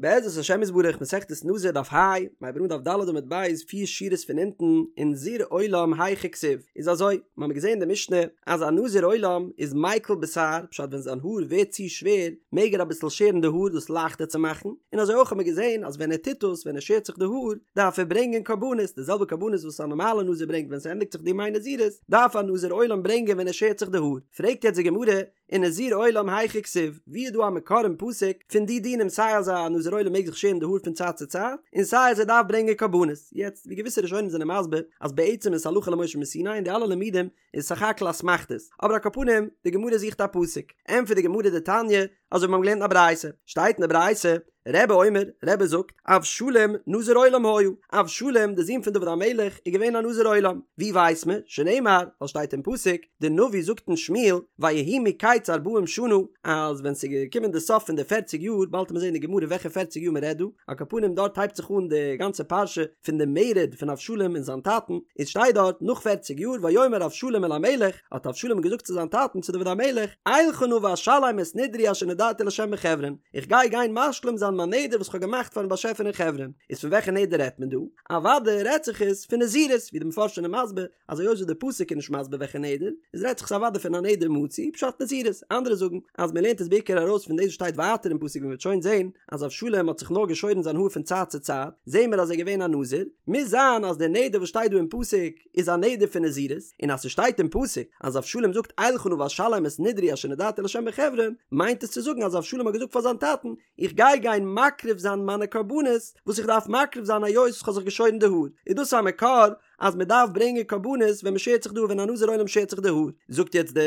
בעזרת השם יתברך מסכת נזיר דף ה, מיר הייבן אן דף ד עמוד ב' פיר שורות פון אונטן, ונזיר עולם היכא כתיב, איז אזוי, מיר האבן געזען אין די משנה אז א נזיר עולם איז מיקל בתער, פשט ווען זיין האר ווערט צו שווער מעג ער אביסל שערן די האר דאס לייכטער צו מאכן, און אזוי אויך האבן מיר געזען אז ווען ער טוט דאס ווען ער שערט זיך די האר דארף ער ברענגען קרבנות, די זעלבע קרבנות וואס א נארמאלע נזיר ברענגט ווען ס'ענדיגט זיך די ימי נזירות דארף א נזיר עולם ברענגען ווען ער שערט זיך די האר, פרעגט יעצט די גמרא, ונזיר עולם היכא כתיב, ווי איז דא א מקור אין פסוק פון די דינים סיי אז א נזיר עולם מעג זיך שערן די האר פון צייט צו צייט, און סיי אז ער דארף ברענגען קרבנות? יעצט, ווי געוויסע ראשונים זענען מסביר אז בעצם איז הלכה למשה מסיני און די אלע לימודים איז סך הכל אסמכתות, אבער על כל פנים, די גמרא זוכט א פסוק. ענטפערט די גמרא דתניא, אזוי ווי מיר האבן געלערנט אין א ברייתא, שטייט אין די ברייתא, רבי אומר, רבי זאגט, אבשלום נזיר עולם היה, אבשלום די זון פון דוד המלך איז געווען א נזיר עולם, ווי ווייסט מען? שנאמר, ווייל שטייט אין פסוק, די נביא זאגט אין שמואל, ויהי מקץ ארבעים שנה, אז ווען ס'איז געקומען די סוף פון די פערציג יאר, באלד וועט מען זען אין די גמרא וועלכע פערציג יאר מען רעדט דא, על כל פנים דארט הייבט זיך אן די גאנצע פרשה פון די מרד פון אבשלום און זיין טאטן, איז שטייט דארט נאך פערציג יאר ויאמר אבשלום אל המלך, האט אבשלום געזאגט צו זיין טאטן צו דוד המלך, אלכה נא ואשלם את נדרי אשר נדרתי לה' בחברון, איך גיי גיין משלים זיין מיין נדר וואס איך האב געמאכט פארן באשעפער אין חברון. איז פון וועלכע נדר רעדט מען דא? אוודאי רעדט זיך עס פון נזירות, ווי די מפרשים זענען מסביר, אז היות וואס די פסוק איז נישט מסביר וועלכע נדר, איז רעדט זיך עס אוודאי פון א נדר מצוי, פשט נזירות. אנדערע זאגן אז מען לערנט עס בעיקר ארויס פון דאס וואס שטייט ווייטער אין פסוק ווי מען וועט שוין זען אז אבשלום האט זיך נאר געשוירן זיין האר פון צייט צו צייט, זעהן מיר אז ער איז געווען א נזיר, מוז זיין אז דער נדר וואס שטייט דא אין פסוק איז א נדר פון נזירות, און אז ס'שטייט אין פסוק אז אבשלום זאגט אלכה נא ואשלם את נדרי אשר נדרתי לה' בחברון, מיינט עס צו זאגן אז אבשלום האט געזאגט פאר זיין טאטן, איך גיי גיין מקריב זיין מיינע קרבנות וואס איך דארף מקריב זיין היות כ'האב זיך געשוירן די האר, איז דאס א מקור אז מען דארף ברענגען קרבנות ווען מען שערט זיך די האר ווען א נזיר עולם שערט זיך די האר, זאגט יעצט די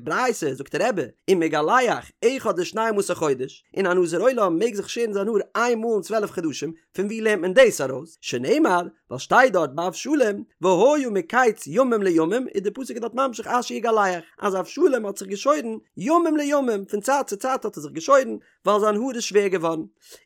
ברייתא, זאגט רבי, ומגלח אחד לשנים עשר חודש, און א נזיר עולם מעג זיך שערן זיין האר איין מאל אין צוועלף חדשים, פון ווי לערנט מען דאס ארויס? שנאמר, ווייל שטייט דארט ביי אבשלום, והיה מקץ ימים לימים, איז די פסוק דארט ממשיך אשר יגלח, אז אבשלום האט זיך געשוירן ימים לימים, פון צייט צו צייט האט ער זיך געשוירן, ווייל זיין האר איז שווער געווארן.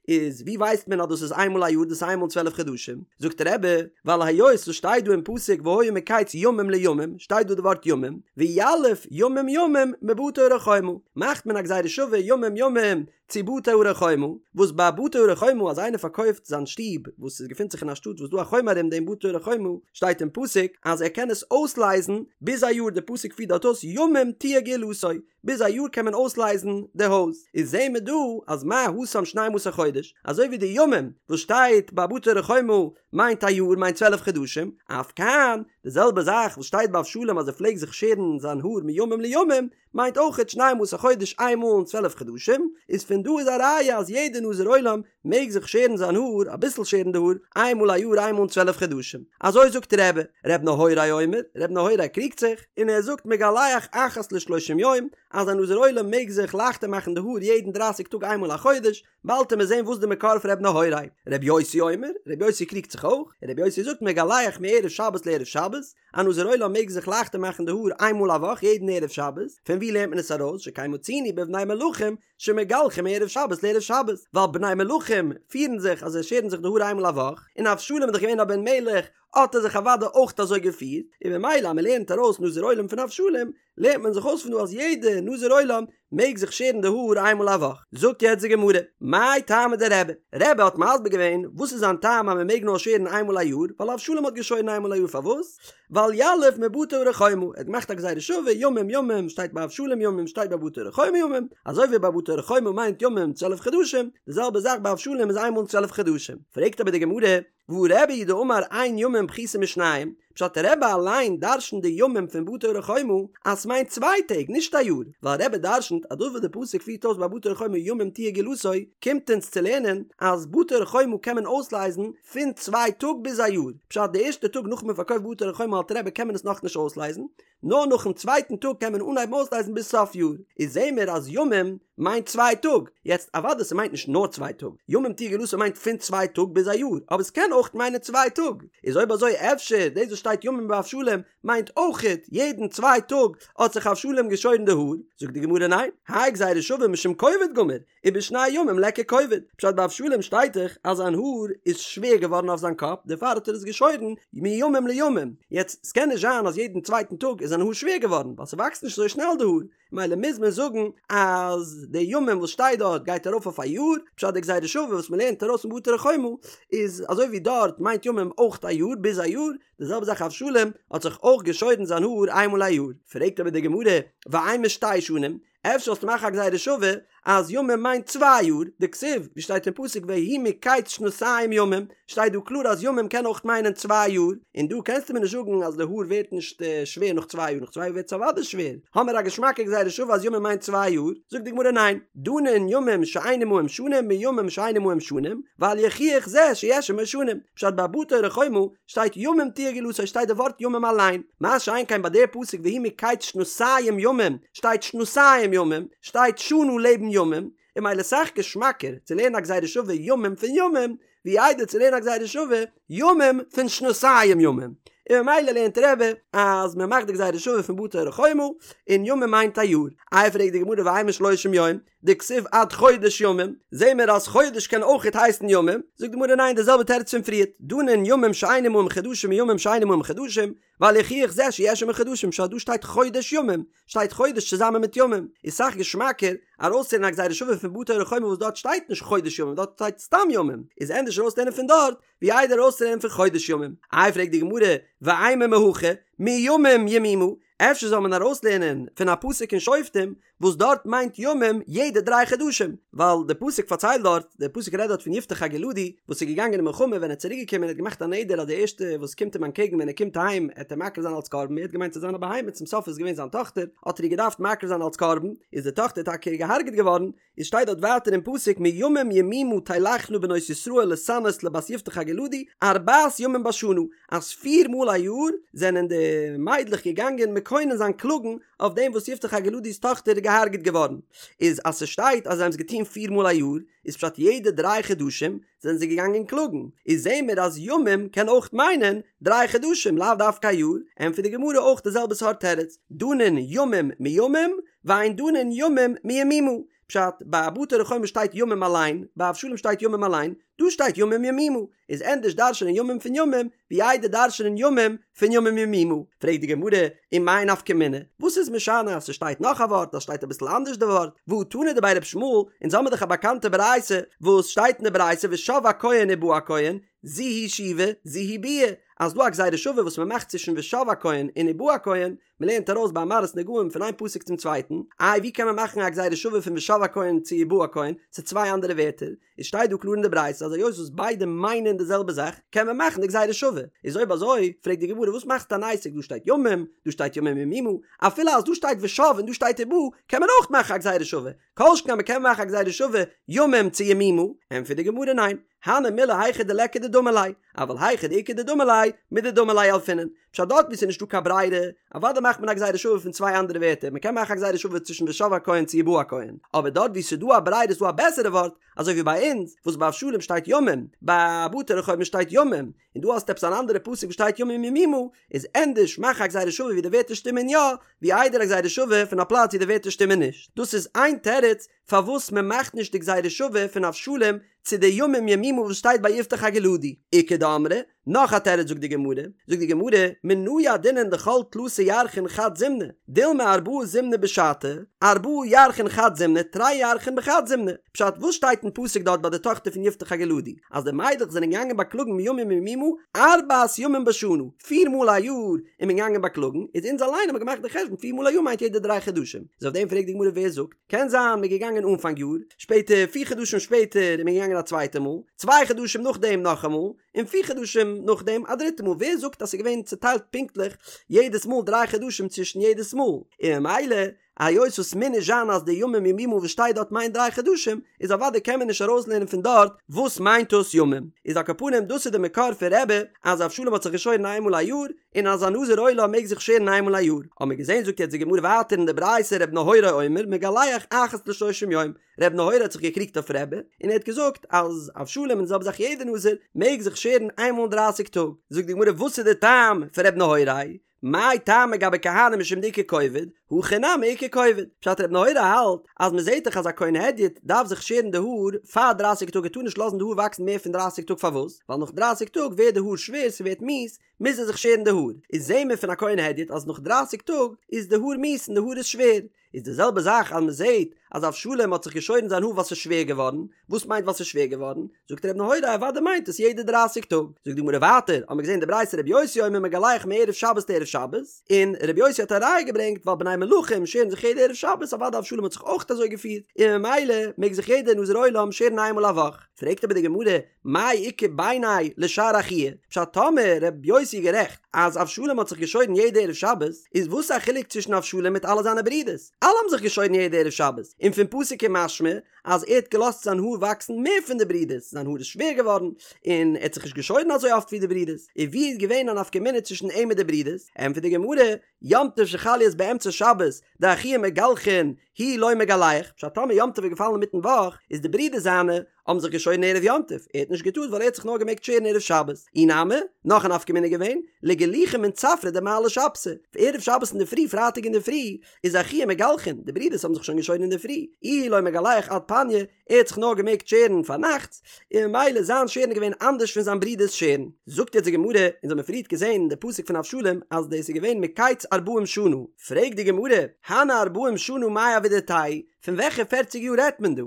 איז ווי ווייסט מען אז דאס איז איינמאל א יאר דאס איז איינמאל אין צוועלף חדשים? זאגט רבי, ווייל היות ס'שטייט דא אין פסוק והיה מקץ ימים לימים, שטייט דא די ווארט ימים, ויליף ימים ימים מבתי ערי חומה, מאכט מען א גזירה שווה ימים ימים צו בתי ערי חומה, וואס ביי בתי ערי חומה אז איינער פארקויפט זיין שטוב וואס עס געפינט זיך אין א שטאט וואס דא א חומה ארום דעם בתי ערי חומה, שטייט אין פסוק אז ער קען עס אויסלייזן ביז א יאר, די פסוק פירט דארט אויס ימים תהיה גאולתו, ביז א יאר קען מען אויסלייזן די הויז, איז זעהן מיר דא אז מה התם שנים עשר חודש, אזוי ווי די ימים וואס שטייט ביי בתי ערי חומה מיינט א יאר מיינט צוועלף חדשים, אף כאן, די זעלבע זאך וואס שטייט ביי אבשלום אז ער פלעגט זיך שערן זיין האר מימים לימים, מיינט אויכעט שנים עשר חודש איין מאל אין צוועלף חדשים, איז פון דא איז א ראיה אז יעדע נזיר עולם מעג זיך שערן זיין האר, אביסל שערן די האר, איין מאל א יאר איין מאל אין צוועלף חדשים. אזוי זאגט רבי. ר' נהוראי אומר, ר' נהוראי קריגט זיך, און ער זאגט מגלח אחת לשלושים יום, אז א נזיר עולם מעג זיך לייכטער מאכן די האר יעדן דרייסיג טאג איין מאל א חודש, באלד וועט מען זען וואס די מקור פון ר' נהוראי. ר' יוסי אומר, ר' יוסי קריגט זיך אויך, און ר' יוסי זאגט מגלח מערב שבת לערב שבת, א נזיר עולם מעג זיך לייכטער מאכן די האר איין מאל א וואך יעדן ערב שבת, פון וואו לערנט מען עס ארויס שכן מצינו בבני מלכים שמגלחים מערב שבת לערב שבת, ווייל בני מלכים פירן זיך אז זיי שערן זיך די האר איינמאל א וואך, און אבשלום איז דאך געווען א בן מלך האט ער זיך אוודאי אויך אזוי געפירט, און ממילא אז מען לערנט ארויס נזיר עולם פון אבשלום, לערנט מען זיך אויס פון דא אז יעדע נזיר עולם מעג זיך שערן די האר איינמאל א וואך. זאגט יעצט די גמרא, מאי טעמא דרבי? רבי האט מסביר געווען וואס איז זיין טעם אז מען מעג נאר שערן איינמאל א יאר, ווייל אבשלום האט געשוירן איינמאל א יאר פארוואס? ווייל יליף מבתי ערי חומה, ער האט געמאכט א גזירה שווה, ימים ימים שטייט ביי אבשלום ימים שטייט ביי בתי ערי חומה ימים, אזוי ווי ביי בתי ערי חומה מיינט ימים צוועלף חדשים, די זעלבע זאך ביי אבשלום איז איינמאל אין צוועלף חדשים. פרעגט אבער די גמרא, והא רבי הוא דאמר אין ימים פחותין משניים, פשט רבי אליין דרשנט די ימים פון בתי ערי חומה אז ס'מיינט צוויי טעג נישט א יאר, ווייל רבי דרשנט אז דאס וואס די פסוק פירט אויס ביי בתי ערי חומה ימים תהיה גאולתו קומט אונז צו לערנען אז בתי ערי חומה קען מען אויסלייזן פון צוויי טאג ביז א יאר, פשט די ערשטע טאג נאך מען פארקויפט בתי ערי חומה האלט רבי קען מען עס נאכנישט אויסלייזן, נאר נאכן צווייטן טאג קען מען אנהייבן אויסלייזן ביז סוף יאר, איז זעהן מיר אז ימים מיינט צוויי טאג, יעצט אוודאי ס'מיינט נישט נאר צוויי טאג, ימים תהיה גאולתו מיינט פון צוויי טאג ביז א יאר, אבער ס'קען אויך. אויך מיינען צוויי טאג, איז אויב אזוי אפשר דאס וואס שטייט ימים באבשלום מיינט אויכעט יעדן צוויי טאג האט זיך אבשלום געשוירן די האר, זאגט די גמרא ניין, האי גזירה שווה משום כובד גמיר, ובשני ימים ליכא כובד, פשט ביי אבשלום שטייט דאך אז זיין האר איז שווער געווארן אויף זיין קאפ דערפאר האט ער עס געשוירן מימים לימים, יעצט ס'קען נישט זיין אז יעדן צווייטן טאג איז זיין האר שווער געווארן ווייל ס'וואקסט נישט אזוי שנעל די האר, מילא מוז מען זאגן אז די ימים וואס שטייט דארט גייט ארויף אויף א יאר, פשט די גזירה שווה וואס מ'לערנט ארויס פון בתי ערי חומה איז אזוי ווי דארט מיינט ימים אויך א יאר ביז א יאר, די זעלבע זאך אבשלום האט זיך אויך געשוירן זיין האר איינמאל א יאר, פרעגט אבער די גמרא ואימא שתי שנים, אפשר זאלסטו מאכן א גזירה שווה אז ימים מיינט צוויי יאר, דכתיב ווי שטייט אין פסוק ויהי מקץ שנתים ימים, שטייט דא קלאר אז ימים קען אויך מיינען צוויי יאר, און דא קענסטו מיר נישט זאגן אז די האר ווערט נישט שווער נאך צוויי יאר, נאך צוויי יאר ווערט עס אוודאי שווער, האמיר א געשמאקע גזירה שווה אז ימים מיינט צוויי יאר, זאגט די גמרא ניין, דנין ימים שאין עמהם שנים מימים שאין עמהם שנים, ואל יוכיח זה שיש עמו שנים, פשט ביי בתי ערי חומה שטייט ימים תהיה גאולתו שטייט די ווארט ימים אליין, מה שאין כן ביי די פסוק ויהי מקץ שנתים ימים שטייט שנתים ימים, שטייט שנה לעבן ימים, און מילא סאך געשמאקער צו לערנען א גזירה שווה ימים פון ימים, ווי איידער צו לערנען א גזירה שווה ימים פון שנתים ימים, און ממילא לערנט רבי אז מען מאכט די גזירה שווה פון בתי ערי חומה, און ימים מיינט א יאר. איי פרעגט די גמרא ואימא שלושים יום, דכתיב עד חודש ימים, זעהן מיר אז חודש קען אויכעט הייסן ימים, זאגט די גמרא ניין די זעלבע תירוץ פון פריערט, דנין ימים שאין עמהם חדשים מימים שאין עמהם חדשים, ואל יוכיח זה שיש עמו חדשים, פשט דא שטייט חודש ימים, שטייט חודש צוזאמען מיט ימים, איז סאך געשמאקער ארויסצולערנען א גזירה שווה פון בתי ערי חומה וואס דארט שטייט נישט חודש ימים דארט שטייט סתם ימים, איז ענדערש ארויסצולערנען פון דארט ווי איידער ארויסצולערנען פון חודש ימים. איי פרעגט די גמרא, ואימא מהכא, מימים ימימה, אפשר זאל מען ארויסלערנען פון א פסוק אין שופטים וואס דארט מיינט ימים יעדע דריי חדשים, ווייל די פסוק פארציילט דארט, די פסוק רעדט דארט פון יפתח הגלעדי וואס איז געגאנגען אין מלחמה ווען ער איז צוריק געקומען ער האט געמאכט א נדר אז די ערשטע וואס קומט אים אנטקעגן ווען ער קומט אהיים עט ער מקריב זיין אלס קרבן ער האט געמיינט ס'איז זיין א בהמה צום סוף איז געווען זיין טאכטער האט ער איר געדארפט מקריב זיין אלס קרבן איז די טאכטער טאקע געהארגעט געווארן, איז שטייט דארט ווייטער אין פסוק מימים ימימה תלכנה בנות ישראל להתענות לבת יפתח הגלעדי ארבעת ימים בשנה אז פיר מאל א יאר זענען די מיידלעך געגאנגען מקונן זיין קלאגן אויף דעם וואס יפתח הגלעדי'ס טאכטער איז געהארגעט געווארן איז אז ס'שטייט אז זיי האבן עס געטון פיר מאל א יאר איז פשט יעדע דריי חדשים זענען זיי געגאנגען קלאגן איז זעהן מיר אז ימים קען אויך מיינען דריי חדשים לאו דווקא א יאר ענטפערט די גמרא אויך די זעלבע סארט תירוץ דנין ימים מימים ואין דנין ימים מימימה, פשט, ביי בתי ערי חומה שטייט ימים אליין, ביי אבשלום שטייט ימים אליין, דא שטייט ימים ימימה, איז ענדערש דרש'נען ימים פון ימים, ווי איידער דרש'נען ימים פון ימים ימימה. פרעגט די גמרא, ומאי נפקא מינה, וואס איז משנה אז ס'שטייט נאך א ווארט, אז שטייט אביסל אנדערש די ווארט, והא תנא דבי ר' ישמעאל, אונז האמיר דאך א באקאנטע ברייתא, וואס שטייט אין די ברייתא ושב הכהן ובא הכהן, זו היא שיבה, זו היא ביאה, אז דא א גזירה שווה וואס מ'מאכט צווישן ושב הכהן און ובא הכהן, מען לערנט ארויס ביי מראות נגעים פון איין פסוק צום צווייטן, איי ווי קען מען מאכן א גזירה שווה פון ושב הכהן צו ובא הכהן, ס'איז צוויי אנדערע ווערטער, איז שטייט דא קלאר אין די ברייתא אז היות וואס ביידע מיינען די זעלבע זאך קען מען מאכן די גזירה שווה, איז אויב אזוי פרעגט די גמרא וואס מאכסטו אן עסק דא שטייט ימים דא שטייט ימים ימימה, אפילו אז דא שטייט ושב און דא שטייט ובא קען מען אויך מאכן א גזירה שווה, כל שכן אז מען קען מאכן א גזירה שווה ימים צו ימימה, ענטפערט די גמרא ניין, הני מילי היכא דליכא דדמי ליה, אבל היכא דאיכא דדמי ליה, מדדמי ליה ילפינן. פשט דארט וואו ס'איז נישטא קיין ברירה, אוודאי מאכט מען א גזירה שווה פון צוויי אנדערע ווערטער, מ'קען מאכן א גזירה שווה צווישן ושב הכהן צו ובא הכהן, אבער דארט וואו ס'איז דא א ברירה איז דא א בעסערע ווארט, אזוי ווי ביי אונז, וואס ביי אבשלום שטייט ימים, ביי בתי ערי חומה שטייט ימים, און דא האסטו עפעס אן אנדערע פסוק וואס שטייט ימים ימימה, איז ענדערש מאך א גזירה שווה ווי די ווערטער שטימען יא, ווי איידער א גזירה שווה פון א פלאץ ווי די ווערטער שטימען נישט. דאס איז איין תירוץ פארוואס מען מאכט נישט די גזירה שווה פון אבשלום צו די ימים ימימה וואס שטייט ביי יפתח הגלעדי. איכא דאמרי, נאך א תירוץ זאגט די גמרא, זאגט די גמרא, מנא ידעינן דכל תלתא ירחין חד זימנא, דילמא ארבעה זימני בשתא, ארבעה ירחין חד זימנא, תרי ירחין בחד זימנא. פשט, וואס שטייט אין פסוק דארט ביי די טאכטער פון יפתח הגלעדי, אז די מיידלעך זענען געגאנגען באקלאגן מימים ימימה ארבעת ימים בשנה, פיר מאל א יאר איז מען געגאנגען באקלאגן, איז אונז אליין האבן געמאכט די חשבון פיר מאל א יאר מיינט יעדע דריי חדשים, איז אויף דעם פרעגט די גמרא ווער זאגט, קען זיין מ'איז געגאנגען אנפאנג יאר, שפעטער פיר חדשים שפעטער איז מען געגאנגען א צווייטע מאל, צוויי חדשים נאכדעם נאכאמאל, און פיר חדשים נאכדעם א דריטע מאל, ווער זאגט אז ס'איז געווען צוטיילט פונקטליך יעדעס מאל דריי חדשים צווישן יעדעס מאל, און ממילא. היות וואס מוז נישט זיין אז די ימים ימימה וואס שטייט דארט מיינט דריי חדשים, איז אוודאי קען מען נישט ארויסלערנען פון דארט וואס מיינט דאס ימים. איז על כל פנים דאס איז די מקור פון רבי אז אבשלום האט זיך געשוירן איינמאל א יאר, און אז א נזיר עולם מעג זיך שערן איינמאל א יאר. האבן מיר געזען זאגט יעצט די גמרא ווייטער אין די ברייתא ר' נהוראי אומר מגלח אחת לשלושים יום, ר' נהוראי האט זיך געקריגט אויף רבי און ער האט געזאגט אז אבשלום און די זעלבע זאך יעדער נזיר מעג זיך שערן איינמאל אין דרייסיג טאג. זאגט די גמרא וואס איז די טעם פון ר' נהוראי? מאי טעמא גבי כהנים משום דאיכא כובד, הכא נמי איכא כובד. פשט ר' נהוראי האלט אז מען זעט דאך אז א כהן הדיוט דארף זיך שערן די האר פאר דרייסיג טאג ער טאר נישט לאזן די האר וואקסן מער פון דרייסיג טאג פארוואס? ווייל נאך דרייסיג טאג ווערט די האר שווער ס'ווערט מיאוס מוז ער זיך שערן די האר איז זעהן מיר פון א כהן הדיוט אז נאך דרייסיג טאג איז די האר מיאוס און די האר איז שווער איז די זעלבע זאך אז מען זעט אז אבשלום האט זיך געשוירן זיין האר ווייל ס'איז שווער געווארן, וואס מיינט ווייל ס'איז שווער געווארן? זאגט ר' נהוראי אוודאי מיינט עס יעדע דרייסיג טאג. זאגט די גמרא ווייטער, האמיר געזען די ברייתא ר' יוסי אומר מגלח מערב שבת לערב שבת, און ר' יוסי האט א ראיה געברענגט ווייל בני מלכים שערן זיך יעדע ערב שבת אוודאי אבשלום האט זיך אויך אזוי געפירט, און ממילא מעג זיך יעדער נזיר עולם שערן איינמאל א וואך. פרעגט אבער די גמרא, מאי איכא ביניה לשאר אחוהי? פשט טאמער ר' יוסי איז גערעכט אז אבשלום האט זיך געשוירן יעדע ערב שבת, איז וואס א חילוק צווישן אבשלום מיט אלע זיינע ברידערס? אלע האבן זיך געשוירן יעדע ערב שבת, און פון פסוק איז משמע אז ער האט געלאזט זיין האר וואקסן מער פון די ברידערס, זיין האר איז שווער געווארן, און ער האט זיך נישט געשוירן אזוי אפט ווי די ברידערס, און ווי איז געווען א נפקא מינה צווישן אים מיט די ברידערס? ענטפערט די גמרא, יום טוב שחל להיות באמצע שבת, דאחוה מגלחין, הוא לא מגלח, פשט טאמער יום טוב איז געפאלן אינמיטן וואך, איז די ברידער זיינע האבן זיך געשוירן ערב יום טוב, ער האט נישט געטארט ווייל ער האט זיך נאר געמעגט שערן ערב שבת. אי נמי, נאך א נפקא מינה געווען, לגלוחי מן צפרא דמעלי שבתא, ערב שבת אינדערפרי, פרייטאג אינדערפרי, איז אחוה מגלחין, די ברידערס האבן זיך שוין געשוירן אינדערפרי, איהו לא מגלח עד פניא, ער האט זיך נאר געמעגט שערן פארנאכטס, און ממילא זיין שערן איז געווען אנדערש פון זיין ברודער'ס שערן. זאגט יעצט די גמרא, אונז האמיר פריערט געזען אין די פסוק פון אבשלום אז דאס איז געווען מקץ ארבעים שנה, פרעגט די גמרא, הני ארבעים שנה מאי עבידתייהו, פון וועלכע פערציג יאר רעדט מען דא?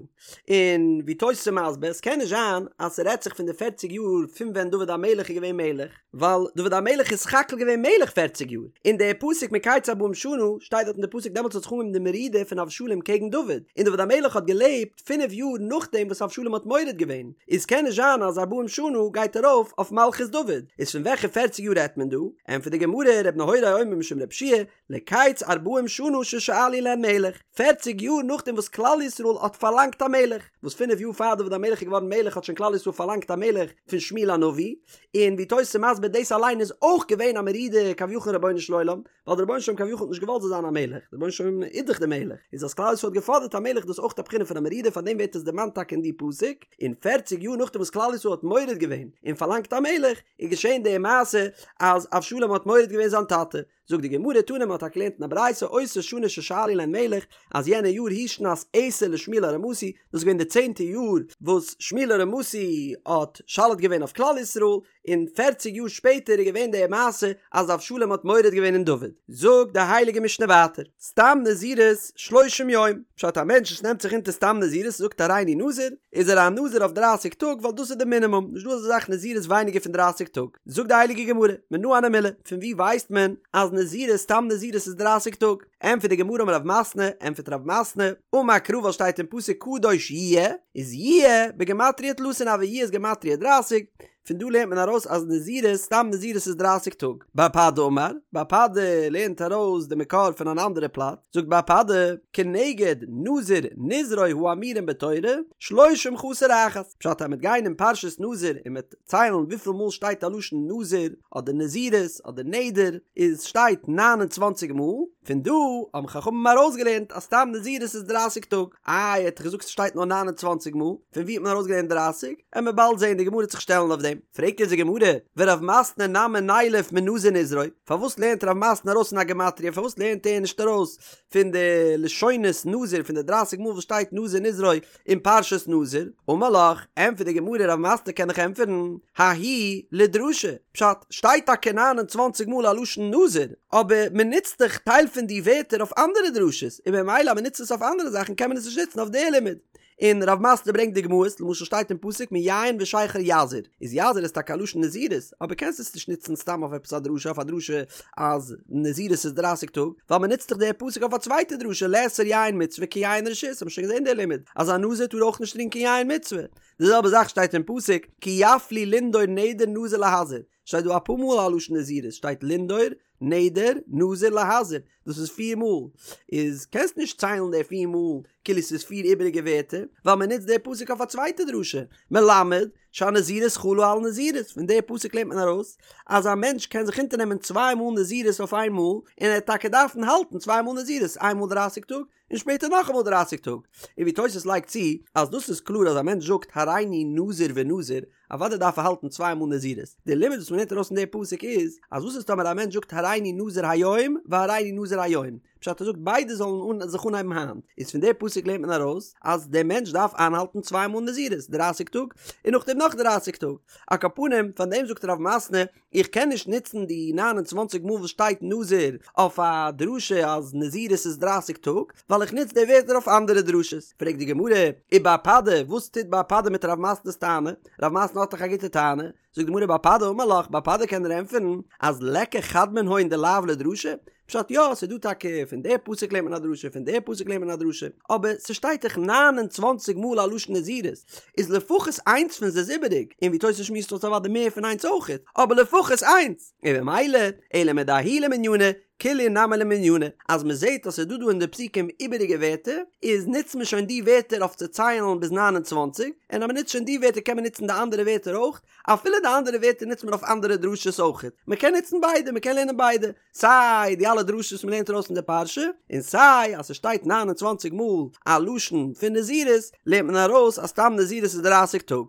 און ווי תוס' איז מסביר, עס קען נישט זיין אז ס'רעדט זיך פון די פערציג יאר פון ווען דוד המלך איז געווען מלך, ווייל דוד המלך איז סך הכל געווען מלך פערציג יאר, און דער פסוק מקץ ארבעים שנה שטייט דארט אין די פסוק דעמאלטס האט זיך אנגעהויבן די מרידה פון אבשלום קעגן דוד, און דוד המלך האט געלעבט פינף יאר נאכדעם וואס אבשלום האט מורד געווען, איז קען נישט זיין אז ארבעים שנה גייט ארויף אויף מלכות דוד, איז פון וועלכע פערציג יאר רעדט מען דא? ענטפערט די גמרא, ר' נהוראי אומר משום ר' יהושע לקץ ארבעים שנה ששאלו להן מלך, פערציג יאר נאכדעם וואס כלל ישראל האט פארלאנגט א מלך, וואס פינף יאר פאר דוד המלך איז געווארן מלך האט שוין כלל ישראל פארלאנגט א מלך פון שמואל הנביא, און ווי תוס' איז מסביר דאס אליין איז אויך געווען א מרידה כביכול אין רבונו של עולם, ווייל דער רבונו של עולם כביכול האט נישט געוואלט זאל זיין א מלך, דער רבונו של עולם איז דאך דער מלך, איז אז כלל ישראל האט געפאדערט א מלך דאס אויך א בחינה פון א מרידה פארדעם ווערט עס דערמאנט טאקע אין די פסוק, און פערציג יאר נאכדעם וואס כלל ישראל האט מורד געווען און פארלאנגט א מלך, איז געשען די מעשה אז אבשלום האט מורד געווען זיין טאטע, זאגט די גמרא תנא מ'האט טאקע געלערנט אין א ברייתא אותה שנה ששאלו להן מלך אז יענע יאר היא שנת עשר לשמואל הרמתי דאס איז געווען די צענטע יאר וואס שמואל הרמתי האט שולט געווען אויף כלל ישראל און פערציג יאר שפעטער איז געווען די מעשה אז אבשלום האט מורד געווען אין דוד זאגט די הייליגע משנה ווייטער סתם נזירות שלושים יום פשט א מענטש וואס נעמט זיך אונטער סתם נזירות זאגט הריני נזיר איז ער א נזיר אויף דרייסיג טאג ווייל דאס איז די מינימום נישט דא אזא זאך נזירות ווייניגער פון דרייסיג טאג זאגט די הייליגע גמרא, מנא הני מילי, פון וואו ווייסט מען אז נזירות סתם נזירות איז דרייסיג טאג? ענטפערט די גמרא אמר רב מתנה, ענטפערט רב מתנה, אמר קרא ווייל שטייט אין פסוק קדוש יהיה, איז יהיה בגימטריא תלתין הוי יהיה איז גימטריא דרייסיג, פון דא לערנט מען ארויס אז נזירות סתם נזירות איז דרייסיג טאג. בר פדא אמר, בר פדא לערנט ארויס די מקור פון אן אנדערע פלאץ, זאגט בר פדא, כנגד נזיר נזרו האמורים בתורה, שלושים חסר אחת, פשט אז מ'וועט גיין אין פרשת נזיר און מ'וועט ציילן וויפיל מאל שטייט א לשון נזיר אדער נזירות אדער נדר איז שטייט 29 מאל, פון דא האבן חכמים ארויסגעלערנט אז סתם נזירות איז דרייסיג טאג, איי האט ער געזאגט ס'שטייט נאר 29 מאל, פון ווי האט מען ארויסגעלערנט דרייסיג? עמיר באלד זעהן די גמרא וועט זיך שטעלן אויף דעם, פרעגט אונז די גמרא, ורב מתנה נמי נילף מנזיר נזרו, פארוואס לערנט רב מתנה ארויס פון א גמטריא פארוואס לערנט ער נישט ארויס פון די לשונות נזיר פון די דרייסיג מאל וואס שטייט נזיר נזרו אין פרשת נזיר, אמר לך, ענטפערט די גמרא רב מתנה קען דיך ענטפערן, ההיא לדרשה, פשט, שטייט טאקע ניין און צוואנציג מאל א לשון נזיר, אבער מען נוצט דאך טייל פון די ווערטער אויף אנדערע דרשות, און ממילא אז מען נוצט עס אויף אנדערע זאכן קען מען עס נישט נוצן אויף די לימוד. און רב מתנה ברענגט דוגמאות, למשל שטייט אין פסוק מיין ושכר יזיר, איז יזיר איז טאקע א לשון נזירות, אבער קענסט עס נישט נוצן סתם אויף עפעס א דרשה, אויף א דרשה אז נזירות איז דרייסיג טאג, ווייל מען נוצט דאך די פסוק אויף א צווייטע דרשה לאסור יין מצוה כיין רשות, האבן מיר שוין געזען די לימוד אז א נזיר טאר אויך נישט טרינקען יין מצוה, די זעלבע זאך שטייט אין פסוק כי יפליא לנדור נדר נזיר להזיר. שטייט דא אפאר מאל א לשון נזירות, שטייט לנדור, נדר, נזיר, להזיר, דאס איז פיר מאל, איז קענסט נישט ציילן די פיר מאל כאילו ס'איז פיר איבעריגע ווערטער, ווייל מען נוצט די פסוק אויף א צווייטע דרשה, מלמד שהנזירות חלה על נזירות, פון די פסוק לערנט מען ארויס אז א מענטש קען זיך אונטערנעמען צוויי מאל נזירות אויף איין מאל, און ער וועט טאקע דארפן האלטן צוויי מאל נזירות, איין מאל דרייסיג טאג, און שפעטער נאכאמאל דרייסיג טאג. און ווי תוס' לייגט צו, אז דאס איז קלאר אז א מענטש זאגט הריני נזיר ונזיר, אוודאי דארף ער האלטן צוויי מאל נזירות. די לימוד וואס מ'לערנט ארויס פון די פסוק איז, אז וואס איז טאמער א מענטש זאגט הריני נזיר היום והריני נזיר היום, פשט ער זאגט ביידע זאלן אן זיך אנהייבן היינט, איז פון די פסוק לערנט מען ארויס אז דער מענטש דארף איינהאלטן צוויי מאל נזירות, דרייסיג טאג, און נאכדעם נאך דרייסיג טאג. על כל פנים, פאר דעם זאגט רב מתנה, איך קען נישט נוצן די נײַן און צוואַנציק מאל וואס שטייט נזיר אויף א דרשה אז נזירות איז דרייסיג טאג, ווייל איך נוץ די ווערטער אויף אנדערע דרשות. פרעגט די גמרא, ובר פדא, וואס טוט בר פדא מיט רב מתנה'ס טענה? רב מתנה האט דאך א גוטע טענה. זאגט די גמרא בר פדא אמר לך, בר פדא קען דיר ענטפערן אז ליכא חד מנהון דלאו לדרשה, פשט יא, ס'איז דא טאקע פון די פסוק לערנט מען א דרשה, פון די פסוק לערנט מען א דרשה, אבער ס'שטייט דאך נײַן און צוואַנציק מאל א לשון נזירות, איז לפחות איינס פון זיי איז איבעריג, און ווי תוס' שמועסט אויס אוודאי מער פון איינס אויכעט, אבער לפחות איינס, און במילא, אלא מדההוא למנינא, כולהו נמי למנינא, אז מ'זעט אז ס'איז דא דא אין די פסוקים איבעריגע ווערטער, איז נוצט מען שוין די ווערטער אויף צו ציילן ביז 29, און אז מ'נוצט שוין די ווערטער קען מען נוצן די אנדערע ווערטער אויך, אפילו די אנדערע ווערטער נוצט מען אויף אנדערע דרשות אויכעט, מ'קען נוצן ביידע, מ'קען לערנען ביידע. סיי די אלע דרשות וואס מ'לערנט ארויס פון די פרשה, און סיי אז ס'שטייט 29 מאל א לשון פון נזירות, לערנט מען ארויס אז סתם נזירות איז דרייסיג טאג.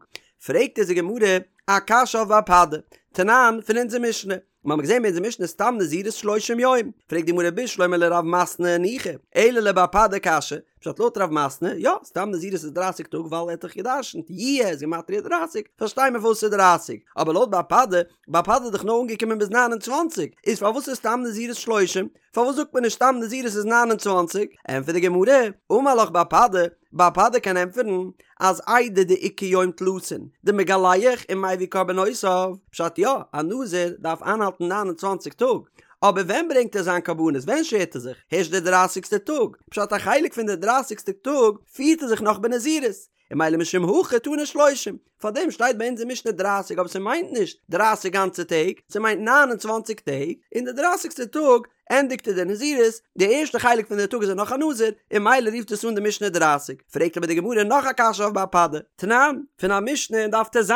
פרעגט אונז די גמרא א קשיא אויף בר פדא, תנן, פון אונזער משנה. מ'האמיר געזען אין אונזער משנה סתם נזירות שלושים יום. פרעגט די גמרא בשלמא לרב מתנה ניחא, אלא לבר פדא קשיא, פשט לויט רב מתנה, יא, סתם נזירות איז דרייסיג טאג ווייל ער האט דאך גע'דרש'נט יהיה איז גימטריא דרייסיג, פארשטיי מיר פארוואס ס'איז דרייסיג, אבער לויט בר פדא, בר פדא איז דאך נאר אנגעקומען ביז 29, איז פארוואס איז סתם נזירות שלושים? פארוואס זאגט מען נישט סתם נזירות איז 29? ענטפערט די גמרא, אמר לך בר פדא, בר פדא קען ענטפערן אז איידי דאיכא יום תלתין דמגלח ומביא קרבנותיו, פשט יא, א נזיר דארף איינהאלטן 29 טאג, אבער ווען ברענגט ער זיין קרבנות? ווען שערט ער זיך? הערשט די דרייסיגסטע טאג, פשט א חלק פון די דרייסיגסטע טאג פירט ער זיך נאך בנזירות, און ממילא משום הכי תנא שלושים, פארדעם שטייט ביי אונז אין משנה דרייסיג אבער ס'מיינט נישט דרייסיג גאנצע טעג, ס'מיינט 29 טעג, און די דרייסיגסטע טאג ענדיגט ער די נזירות, די ערשטע חלק פון די טאג איז ער נאך א נזיר, און ממילא רופט עס אן די משנה דרייסיג. פרעגט אבער די גמרא נאך א קשיא אויף בר פדא, תנן, פון א משנה אין דף טז,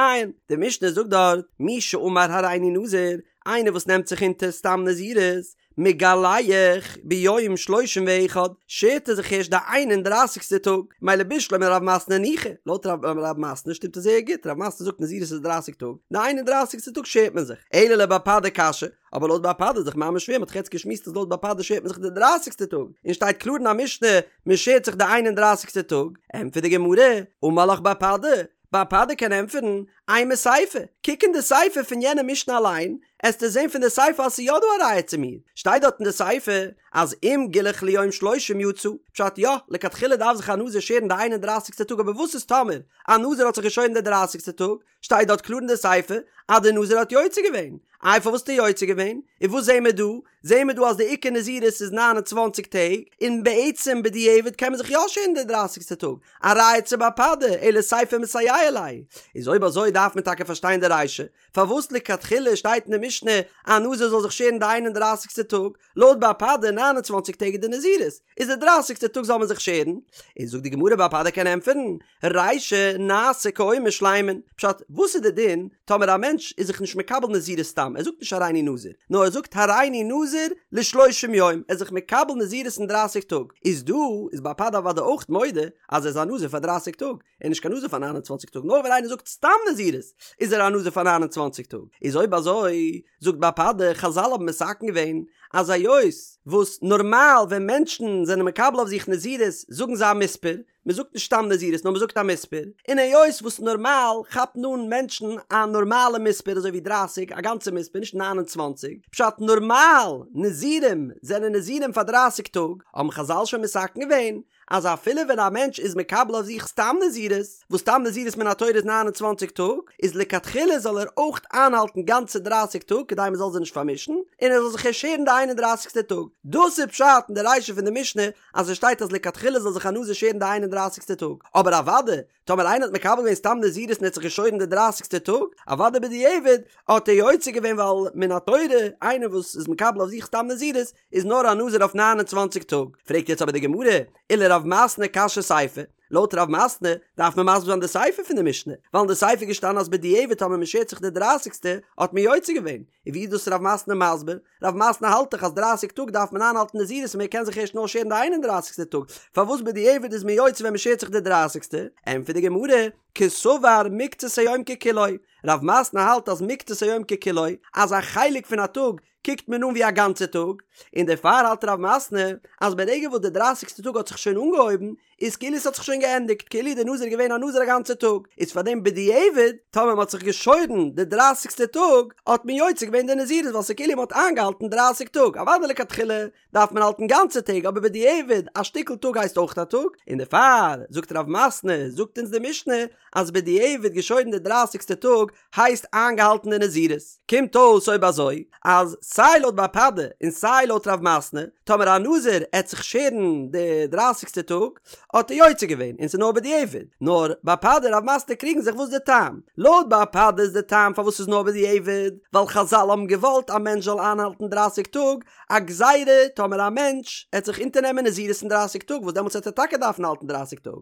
די משנה זאגט דארט, מי שאמר הריני נזיר, איינער וואס נעמט זיך אונטער סתם נזירות, מגלח ביום שלושים ואחד, שערט ער זיך הערשט די איין און דרייסיגסטע טאג, מילא בשלמא לרב מתנה ניחא, לויט רב מתנה שטימט עס זייער גוט, רב מתנה זאגט נזירות איז דרייסיג טאג, די איין און דרייסיגסטע טאג שערט מען זיך, אלא לבר פדא קשיא, אבער לויט בר פדא איז דאך ממש שווער, מען האט דאך יעצט געשמועסט אז לויט בר פדא שערט מען זיך די דרייסיגסטע טאג, און שטייט קלאר אין א משנה מען שערט זיך די איין און דרייסיגסטע טאג, ענטפערט די גמרא, אמר לך בר פדא, בר פדא קען ענטפערן, אימא סיפא, קוק אין די סיפא פון יענע משנה אליין, עסטו זען פון די סיפא אז ס'איז יא דא א ראיה צו מיר. שטייט דארט אין די סיפא אז אם גילח ליום שלושים יצא, פשט יא, לכתחילה דארף זיך א נזיר שערן די איין און דרייסיגסטע טאג אבער וואס איז טאמער א נזיר האט זיך געשוירן די דרייסיגסטע טאג, שטייט דארט קלאר אין די סיפא אז די נזיר האט יוצא געווען. איי פארוואס האט ער יוצא געווען? און וואס זעהן מיר דא? זעהן מיר דא אז די עיקר נזירות איז 29 טעג, און בעצם בדיעבד קען מען זיך יא שערן די דרייסיגסטע טאג, א ראיה צו בר פדא, אלא סיפא מסייע ליה. איז אויב אזוי דארף מען טאקע פארשטיין די רישא, פארוואס לכתחילה שטייט אין די משנה א נזיר זאל זיך שערן די איין און דרייסיגסטע טאג, לויט בר פדא 29 טעג איז די נזירות, איז די דרייסיגסטע טאג זאל מען זיך שערן? און זאגט די גמרא בר פדא קען ענטפערן, רישא נעשה כאומר שלימין, פשט, וואס איז די דין טאמער א מענטש איז זיך נישט מקבל נזירות סתם, ער זאגט נישט הריני נזיר, נאר ער זאגט הריני נזיר לשלושים יום, ער איז זיך מקבל נזירות אין דרייסיג טאג, איז דא איז בר פדא אוודאי אויך מודה אז ער איז א נזיר פאר דרייסיג טאג, ער איז נישט קיין נזיר פאר 29 טאג, נאר ווען איינער זאגט סתם נזירות איז ער א נזיר פאר 29 טאג, איז אויב אזוי זאגט בר פדא, חזל האבן מתקן געווען אז היות וואס נארמאל ווען מענטשן זענען מקבל אויף זיך נזירות זאגן זיי א מספר, מען זאגט נישט סתם נזירות נאר מען זאגט א מספר, און היות וואס נארמאל כאפן אן מענטשן א נארמאלע מספר אזוי ווי דרייסיג א גאנצע מספר נישט 29, פשט נארמאל נזירים זענען נזירים פאר דרייסיג טאג, האבן חזל שוין מתקן געווען. אז אפילו ווען א מענטש איז מקבל אויף זיך סתם נזירות, וואס סתם נזירות מן התורה איז 29 טאג, איז לכתחילה זאל ער אויך איינהאלטן גאנצע דרייסיג טאג כדי מען זאל זיי נישט פארמישן, און ער זאל זיך ערשט שערן די איין און דרייסיגסטע טאג. דאס איז פשט אין די רישא פון די משנה אז עס שטייט אז לכתחילה זאל זיך א נזיר שערן די איין און דרייסיגסטע טאג, אבער אוודאי טאמער איינער האט מקבל געווען סתם נזירות און האט זיך געשוירן די דרייסיגסטע טאג, אוודאי בדיעבד האט ער יוצא געווען ווייל מן התורה איינער וואס איז מקבל אויף זיך סתם נזירות איז נאר א נזיר אויף 29 טאג. פרעגט יעצט אבער די גמרא, ולרב מתנה קשיא סיפא, לויט רב מתנה דארף מען מסביר זיין די סיפא פון די משנה, ווייל אין די סיפא איז געשטאנען אז בדיעבד טאמער מען שערט זיך די דרייסיגסטע האט מען יוצא געווען, און ווי איז דאס רב מתנה מסביר? רב מתנה האלט דאך אז דרייסיג טאג דארף מען איינהאלטן נזירות און מען קען זיך ערשט נאר שערן די איין און דרייסיגסטע טאג, פארוואס בדיעבד איז מען יוצא ווען מען שערט זיך די דרייסיגסטע? ענטפערט די גמרא, קסבר מקצת היום ככולו, רב מתנה האלט אז מקצת היום ככולו, אז א חלק פון א טאג קוקט מען אן ווי א גאנצע טאג, און דערפאר האלט רב מתנה אז ברגע וואס די דרייסיגסטע טאג האט זיך שוין אנגעהויבן, איז כאילו עס האט זיך שוין געענדיגט, כאילו די נזיר איז געווען א נזיר א גאנצע טאג, איז פאר דעם בדיעבד, טאמער מען האט זיך געשוירן די דרייסיגסטע טאג, האט מען יוצא געווען די נזירות ווייל ס'איז כאילו מען האט איינגעהאלטן דרייסיג טאג, אוודאי לכתחילה דארף מען האלטן גאנצע טעג אבער בדיעבד א שטיקל טאג הייסט אויך א טאג, און דערפאר זאגט רב מתנה, זאגט אונז די משנה, אז בדיעבד געשוירן די דרייסיגסטע טאג הייסט איינגעהאלטן די נזירות. קומט אויס אויב אזוי אז סיי לויט בר פדא און סיי לויט רב מתנה, טאמער א נזיר עט זיך שערן די דרייסיגסטע טאג האט ער יוצא געווען און ס'איז נאר בדיעבד, נאר בר פדא און רב מתנה קריגן זיך וואס די טעם. לויט בר פדא איז די טעם פארוואס ס'איז נאר בדיעבד ווייל חזל האבן געוואלט א מענטש זאל איינהאלטן דרייסיג טאג, א גזירה טאמער א מענטש עט זיך אונטערנעמען נזירות אין דרייסיג טאג וואס דעמאלטס עט ער טאקע דארפן האלטן דרייסיג טאג.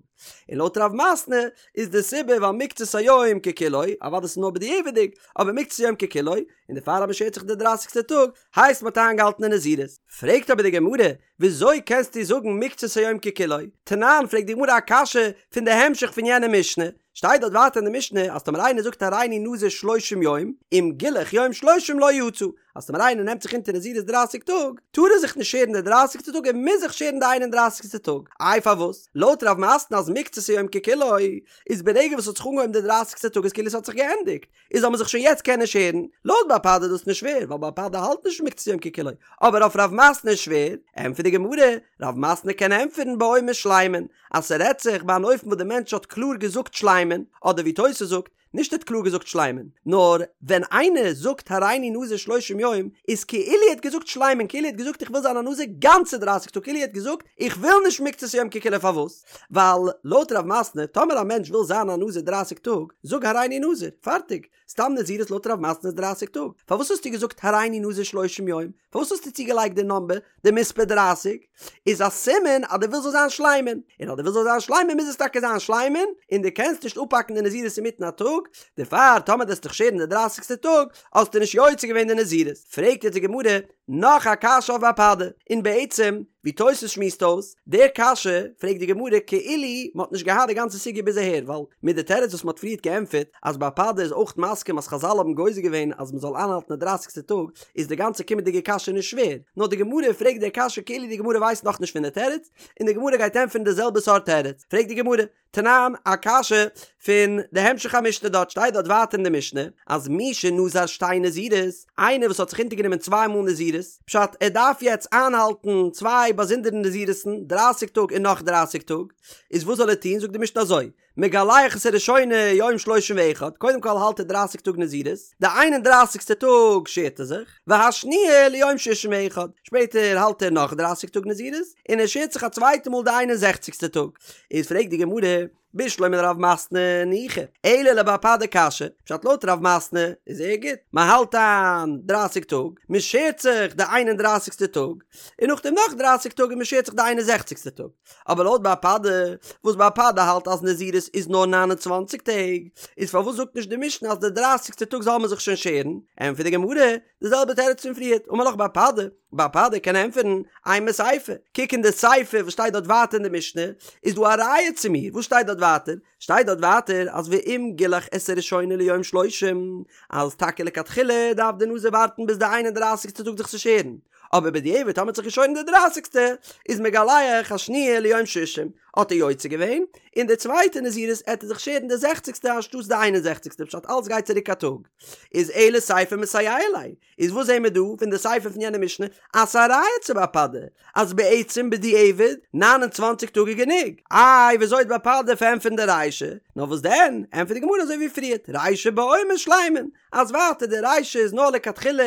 און לויט רב מתנה איז די סיבה ווייל מקצת היום ככולו, אוודאי ס'איז נאר בדיעבד'יג, אבער מקצת היום ככולו, און דערפאר אז מ'שערט זיך די דרייסיגסטע טאג, הייסט מ'האט איינגעהאלטן די נזירות. פרעגט אבער די גמרא, וויאזוי קענסטו זאגן מקצת היום ככולו? תנן, פרעגט די גמרא א קשיא פון די המשך פון יענע משנה, שטייט דארט ווייטער אין די משנה אז טאמער איינער זאגט הריני נזיר שלושים יום, אם גילח יום שלושים לא יצא, אז טאמער איינער נעמט זיך אונטער נזירות דרייסיג טאג, טאר ער זיך נישט שערן די דרייסיגסטע טאג ער מוז זיך שערן די איין און דרייסיגסטע טאג. איי פארוואס? לויט רב מתנה אז מקצת היום ככולו, איז ברגע וואס ס'האט זיך אנגעהויבן די דרייסיגסטע טאג איז כאילו ס'האט זיך געענדיגט, איז זאל מען זיך שוין יעצט קענען שערן, לויט בר פדא איז דאס נישט שווער, ווייל בר פדא האלט נישט מקצת היום ככולו, אבער אויף רב מתנה איז שווער, ענטפערט די גמרא, רב מתנה קען ענטפערן באומר שלימין, אז ס'רעדט זיך ביי אן אופן וואס די מענטש האט קלאר געזאגט שלימין, אדער ווי תוס' זאגט, נישט ער האט קלאר געזאגט שלימין, נאר ווען איינער זאגט הריני נזיר שלושים יום, איז כאילו ער האט געזאגט שלימין, כאילו ער האט געזאגט איך וויל זיין א נזיר גאנצע דרייסיג טאג, כאילו ער האט געזאגט איך וויל נישט מקצת יום ככולו פארוואס? ווייל לויט רב מתנה טאמער א מענטש וויל זיין א נזיר דרייסיג טאג, זאג הריני נזיר, פארטיג, סתם נזירות לויט רב מתנה איז דרייסיג טאג, פארוואס האסטו געזאגט הריני נזיר שלושים יום? פארוואס האסטו צוגעלייגט די נאמבער, די מספר דרייסיג? איז א סימן אז דו ווילסט זאל זיין שלימין, און אז דו ווילסט זאל זיין שלימין מוז עס טאקע זיין שלימין, און דו קענסט נישט אפהאקן די נזירות אינמיטן א טאג, דערפאר טאמער דו וועסט דיך שערן די דרייסיגסטע טאג, האסטו נישט יוצא געווען די נזירות. פרעגט יעצט די גמרא נאך א קשיא אויף בר פדא, און בעצם ווי תוס' שמועסט אויס די קשיא, פרעגט די גמרא כאילו מען האט נישט געהאט די גאנצע סוגיא ביז אהער, ווייל מיט די תירוץ וואס מען האט פריערט געענטפערט אז בר פדא איז אויך מסכים אז חזל האבן גוזר געווען אז מען זאל איינהאלטן די דרייסיגסטע טאג, איז די גאנצע קומענדיגע קשיא נישט שווער, נאר די גמרא פרעגט די קשיא כאילו די גמרא ווייסט נאכנישט פון די תירוץ, און די גמרא גייט ענטפערן די זעלבע סארט תירוץ, פרעגט די גמרא, תנן, א קשיא פון די המשך המשנה דארט שטייט דארט ווייטער אין די משנה אז מי שנזר שתי נזירות, איינער וואס האט זיך אונטערגענומען צוויי מאל נזירות, פשט ער דארף יעצט איינהאלטן צוויי באזונדערע נזירות'ן, דרייסיג טאג און נאך דרייסיג טאג, איז וואס זאל ער טון, זאגט די משנה אזוי, מגלח את הראשונה יום שלושים ואחד, קודם כל האלט ער דרייסיג טאג נזירות, די איין און דרייסיגסטע טאג שערט ער זיך, והשניה ליום שישים ואחד, שפעטער האלט ער נאך דרייסיג טאג נזירות, און ער שערט זיך א צווייטע מאל די איין און זעכציגסטע טאג. איז פרעגט די גמרא, בשלמא לרב מתנה ניחא, אלא לבר פדא קשיא, פשט לויט רב מתנה איז זייער גוט, מען האלט איין דרייסיג טאג, מען שערט זיך די איין און דרייסיגסטע טאג, און נאכדעם נאך דרייסיג טאג און מען שערט זיך די איין און זעכציגסטע טאג. אבער לויט בר פדא, וואס בר פדא האלט אז נזירות איז נאר 29 טעג, איז פארוואס זאגט נישט די משנה אז די דרייסיגסטע טאג זאל מען זיך שוין שערן? ענטפערט די גמרא, די זעלבע תירוץ פון פריערט, אמר לך בר פדא, בר פדא קען ענטפערן, אימא סיפא, קוק אין די סיפא וואס שטייט דארט ווייטער אין די משנה, איז דא א ראיה צו מיר, וואס שטייט דארט ווייטער? שטייט דארט ווייטער אז ואם גילח את הראשונה ליום שלושים, אז טאקע לכתחילה דארף די נזיר ווארטן ביז די איין און דרייסיגסטע טאג זיך צו שערן, אבער בדיעבד טאמער האט זיך געשוירן די דרייסיגסטע איז מגלח השניה ליום ששים האט ער יוצא געווען, און די צווייטע נזירות עט ער זיך שערן די זעכציגסטע אנשטאטס די איין און זעכציגסטע פשט אלץ גייט צוריק א טאג איז אלא סיפא מסייע ליה איז וואס זעהן מיר דא פון די סיפא פון יענע משנה אז ס'איז א ראיה צו בר פדא אז בעצם בדיעבד 29 טאג איז גענוג. איי וויאזוי וועט בר פדא פארענטפערן די רישא? נאר וואס דען, ענטפערט די גמרא אזוי ווי פריערט, רישא בעומר שלימין, אז ווייטער די רישא איז נאר לכתחילה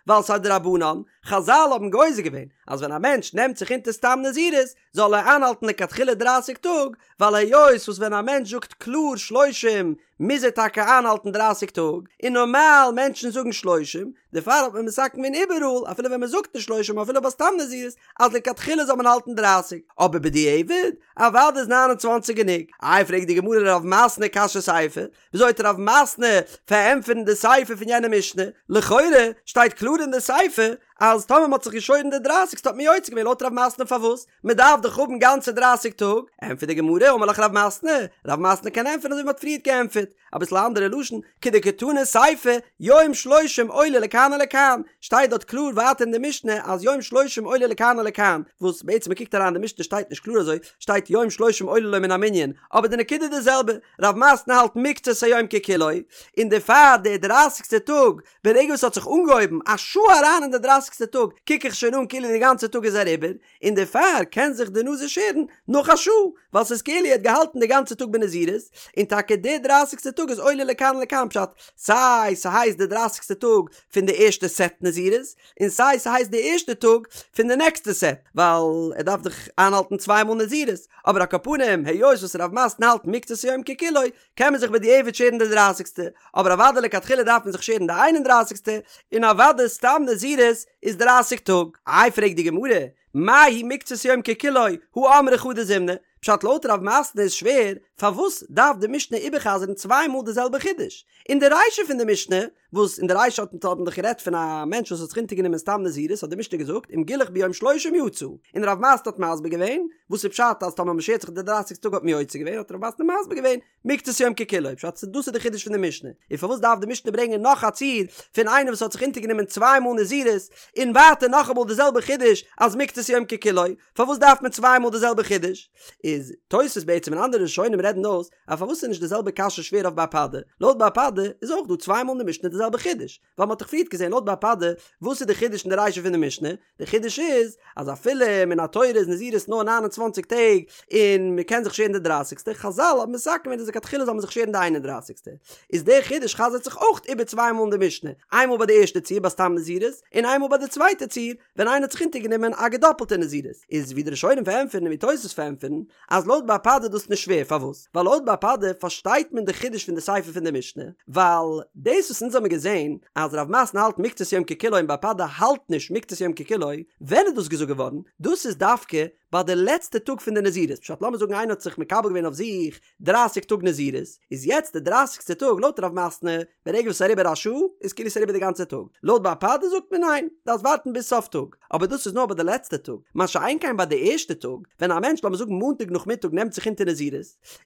ווייל ס'איז א דרבנן, חזל האבן גוזר געווען אז ווען א מענטש נעמט זיך אונטער סתם נזירות זאל ער איינהאלטן לכתחילה דרייסיג טאג, ווייל היות וואס ווען א מענטש זאגט קלאר שלושים מוז ער טאקע איינהאלטן דרייסיג טאג, און נארמאל מענטשן זאגן שלושים, דערפאר האט מען מתקן געווען איבעראל אפילו ווען מען זאגט נישט שלושים אפילו ביי סתם נזירות אז לכתחילה זאל מען האלטן דרייסיג, אבער בדיעבד אוודאי איז 29 גענוג. איי פרעגט די גמרא לרב מתנה קשיא סיפא, וויאזוי וועט רב מתנה פארענטפערן די סיפא פון יענע משנה? לכאורה שטייט קלאר אין די סיפא אז טאמער מען האט זיך געשוירן די דרייסיגסטע האט מען יוצא געווען לויט רב מתנה פארוואס? מען דארף דאך האבן גאנצע דרייסיג טאג, ענטפערט די גמרא אמר לך רב מתנה, רב מתנה קען ענטפערן אזוי ווי מען האט פריערט געענטפערט, אביסל א אנדערע לשון, כדקתני סיפא, יום שלושים עולה לכאן ולכאן, שטייט דארט קלאר ווייטער אין די משנה אז יום שלושים עולה לכאן ולכאן, וואס בעצם מען קוקט אריין אין די משנה שטייט נישט קלאר אזוי, שטייט יום שלושים עולה לו מן המנין, אבער די נקודה איז די זעלבע, רב מתנה האלט מקצת היום ככולו, און דערפאר די דרייסיגסטע טאג ברגע וואס ס'האט זיך אנגעהויבן א שעה אריין אין די דרייסיגסטע טאג קוק איך שוין אן כאילו די גאנצע טאג איז אריבער, און דערפאר קען זיך די נזיר שערן נאך א שעה, ווייל ס'איז כאילו ער האט געהאלטן די גאנצע טאג בנזירות, און טאקע די דרייסיגסטע טאג איז עולה לכאן ולכאן פשט, סיי ס'הייסט די דרייסיגסטע טאג פון די ערשטע סעט נזירות, און סיי ס'הייסט די ערשטע טאג פון די נעקסטע סעט, ווייל ער דארף דאך איינהאלטן צוויי מאל נזירות, אבער על כל פנים היות וואס רב מתנה האלט מקצת היום ככולו, קען מען זיך בדיעבד שערן די דרייסיגסטע, אבער אוודאי לכתחילה דארף מען זיך שערן די איין און דרייסיגסטע, און אוודאי סתם נזירות איז דרייסיג טאג. איי פרעגט די גמרא, מאי היא מקצת יום ככולו, הא אמרה חדא זימנא, פשט לויט רב מתנה איז שווער, פארוואס דארף די משנה איבערחזר'ן צוויי מאל די זעלבע חידוש? אין די רישא פון די משנה, וואס אין די רישא האט מען דאך גערעדט פון א מענטש וואס האט זיך אונטערגענומען סתם נזירות האט די משנה געזאגט אם גילח ביום שלושים יצא, און רב מתנה האט מסביר געווען וואס איז פשט אז טאמער מ'שערט זיך די דרייסיגסטע טאג האט מען יוצא געווען האט רב מתנה מסביר געווען מקצת יום ככולו פשט דאס איז די חידוש פון די משנה, און פארוואס דארף די משנה ברענגען נאך א ציור פון איינער וואס האט זיך אונטערגענומען צוויי מאל נזירות און ווייטער נאכאמאל די זעלבע חידוש אז מקצת יום ככולו פארוואס דארף מען צוויי מאל די זעלבע חידוש? איז תוספות בעצם און אנדערע ראשונים רעדן אויס אז פארוואס איז נישט די זעלבע קשיא שווער אויף בר פדא? לויט בר פדא איז אויך דא צוויי מאל אין די משנה די זעלבע חידוש, ווייל מ'האט דאך פריערט געזען לויט בר פדא וואס איז די חידוש אין די רישא פון די משנה? די חידוש איז אז אפילו מן התורה איז נזירות נאר 29 טעג און מ'קען זיך שערן די דרייסיגסטע, חזל האבן מתקן געווען אז לכתחילה זאל מען זיך שערן די איין און דרייסיגסטע, איז דער חידוש חזר'ט זיך אויך איבער צוויי מאל אין די משנה, איינמאל ביי די ערשטע ציור ביי סתם נזירות, און איינמאל ביי די צווייטע ציור ווען איינער האט זיך אונטערגענומען א געדאפלטע נזירות, איז ווי די ראשונים פארענטפערן און ווי תוס' פארענטפערן, אז לויט בר פדא איז דאס נישט שווער, פארוואס? ווייל לויט בר פדא פארשטייט מען די חידוש פון די סיפא פון די משנה, ווייל דאס וואס אונז האבן געזען אז רב מתנה האלט מקצת יום ככולו און בר פדא האלט נישט מקצת יום ככולו, ווען איז דאס געזאגט געווארן? דאס איז דווקא ביי די לעצטע טאג פון די נזירות, פשט לאמיר זאגן איינער האט זיך מקבל געווען אויף זיך דרייסיג טאג נזירות, איז יעצט די דרייסיגסטע טאג לויט רב מתנה, ברגע וואס ס'איז אריבער א שעה, איז כאילו ס'איז אריבער די גאנצע טאג, לויט בר פדא זאגט מען ניין, דארפסט ווארטן ביז סוף טאג, אבער דאס איז נאר ביי די לעצטע טאג, מה שאין כן ביי די ערשטע טאג, ווען א מענטש לאמיר זאגן מאנטאג נאכמיטאג נעמט זיך אונטער נזירות,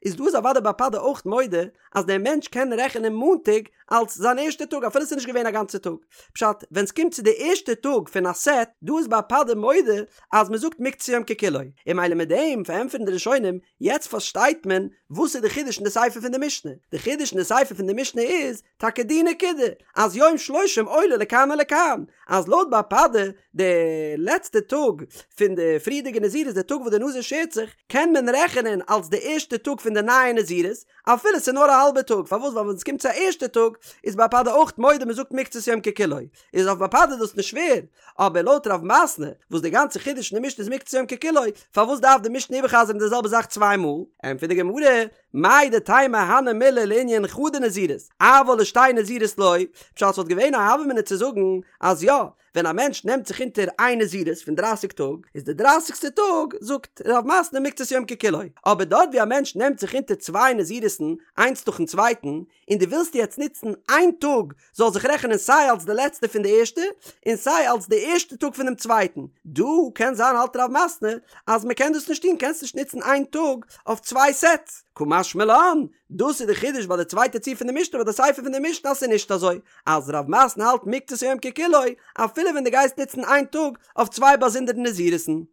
איז דא איז אוודאי בר פדא אויך מודה אז דער מענטש קען רעכענען מאנטאג אלס זיין ערשטע טאג אפילו ס'איז נישט געווען א גאנצע טאג. פשט, ווען ס'קומט צו די ערשטע טאג פון א סעט, דא איז בר פדא מודה אז מ'זאגט מקצת יום ככולו, און ממילא מיט דעם פארענטפערן די ראשונים יעצט פארשטייט מען וואס איז די חידוש אין די סיפא פון די משנה, די חידוש אין די סיפא פון די משנה איז טאקע די נקודה אז יום שלושים עולה לכאן ולכאן, אז לויט בר פדא די לעצטע טאג פון די פריערדיגע נזירות די טאג וואס די נזיר שערט זיך קען מען רעכענען אלס די ערשטע טאג פון די נייע נזירות אפילו ס'איז נאר א האלבע טאג, פארוואס ווייל ווען ס'קומט צו א ערשטע טאג איז בר פדא אויך מודה מ'זאגט מקצת יום ככולו, איז אויף בר פדא דאס נישט שווער, אבער לויט רב מתנה, וואס די גאנצע חידוש אין די משנה איז מקצת יום ככולו, פארוואס דארף די משנה איבערחזר'ן די זעלבע זאך צוויי מאל? ענטפערט די גמרא, מהו דתימא הני מילי לענין חדא נזירות, אבל לשתי נזירות לא, פשט ס'וואלט געווען א הוה אמינא צו זאגן אז יא, ווען א מענטש נעמט זיך אונטער איין נזירות פון דרייסיג טאג, איז די דרייסיגסטע טאג זאגט רב מתנה מקצת יום ככולו, אבער דארט ווי א מענטש נעמט זיך אונטער צוויי נזירות'ן איינס נאכן צווייטן, און דו ווילסט יעצט נוצן איין טאג זאל זיך רעכענען סיי אלס די לעצטע פון די ערשטע און סיי אלס די ערשטע טאג פונעם צווייטן, דא קען זיין האלט רב מתנה אז מען קען דאס נישט טון קענסט נישט נוצן איין טאג אויף צוויי סעטס, קא משמע משמע לן, דאס איז די חידוש ביי די צווייטע ציור פון די משנה ביי די סיפא פון די משנה אז ס'איז נישט אזוי אז רב מתנה האלט מקצת היום ככולו אפילו ווען דו גייסט נוצן איין טאג אויף צוויי באזונדערע נזירות'ן.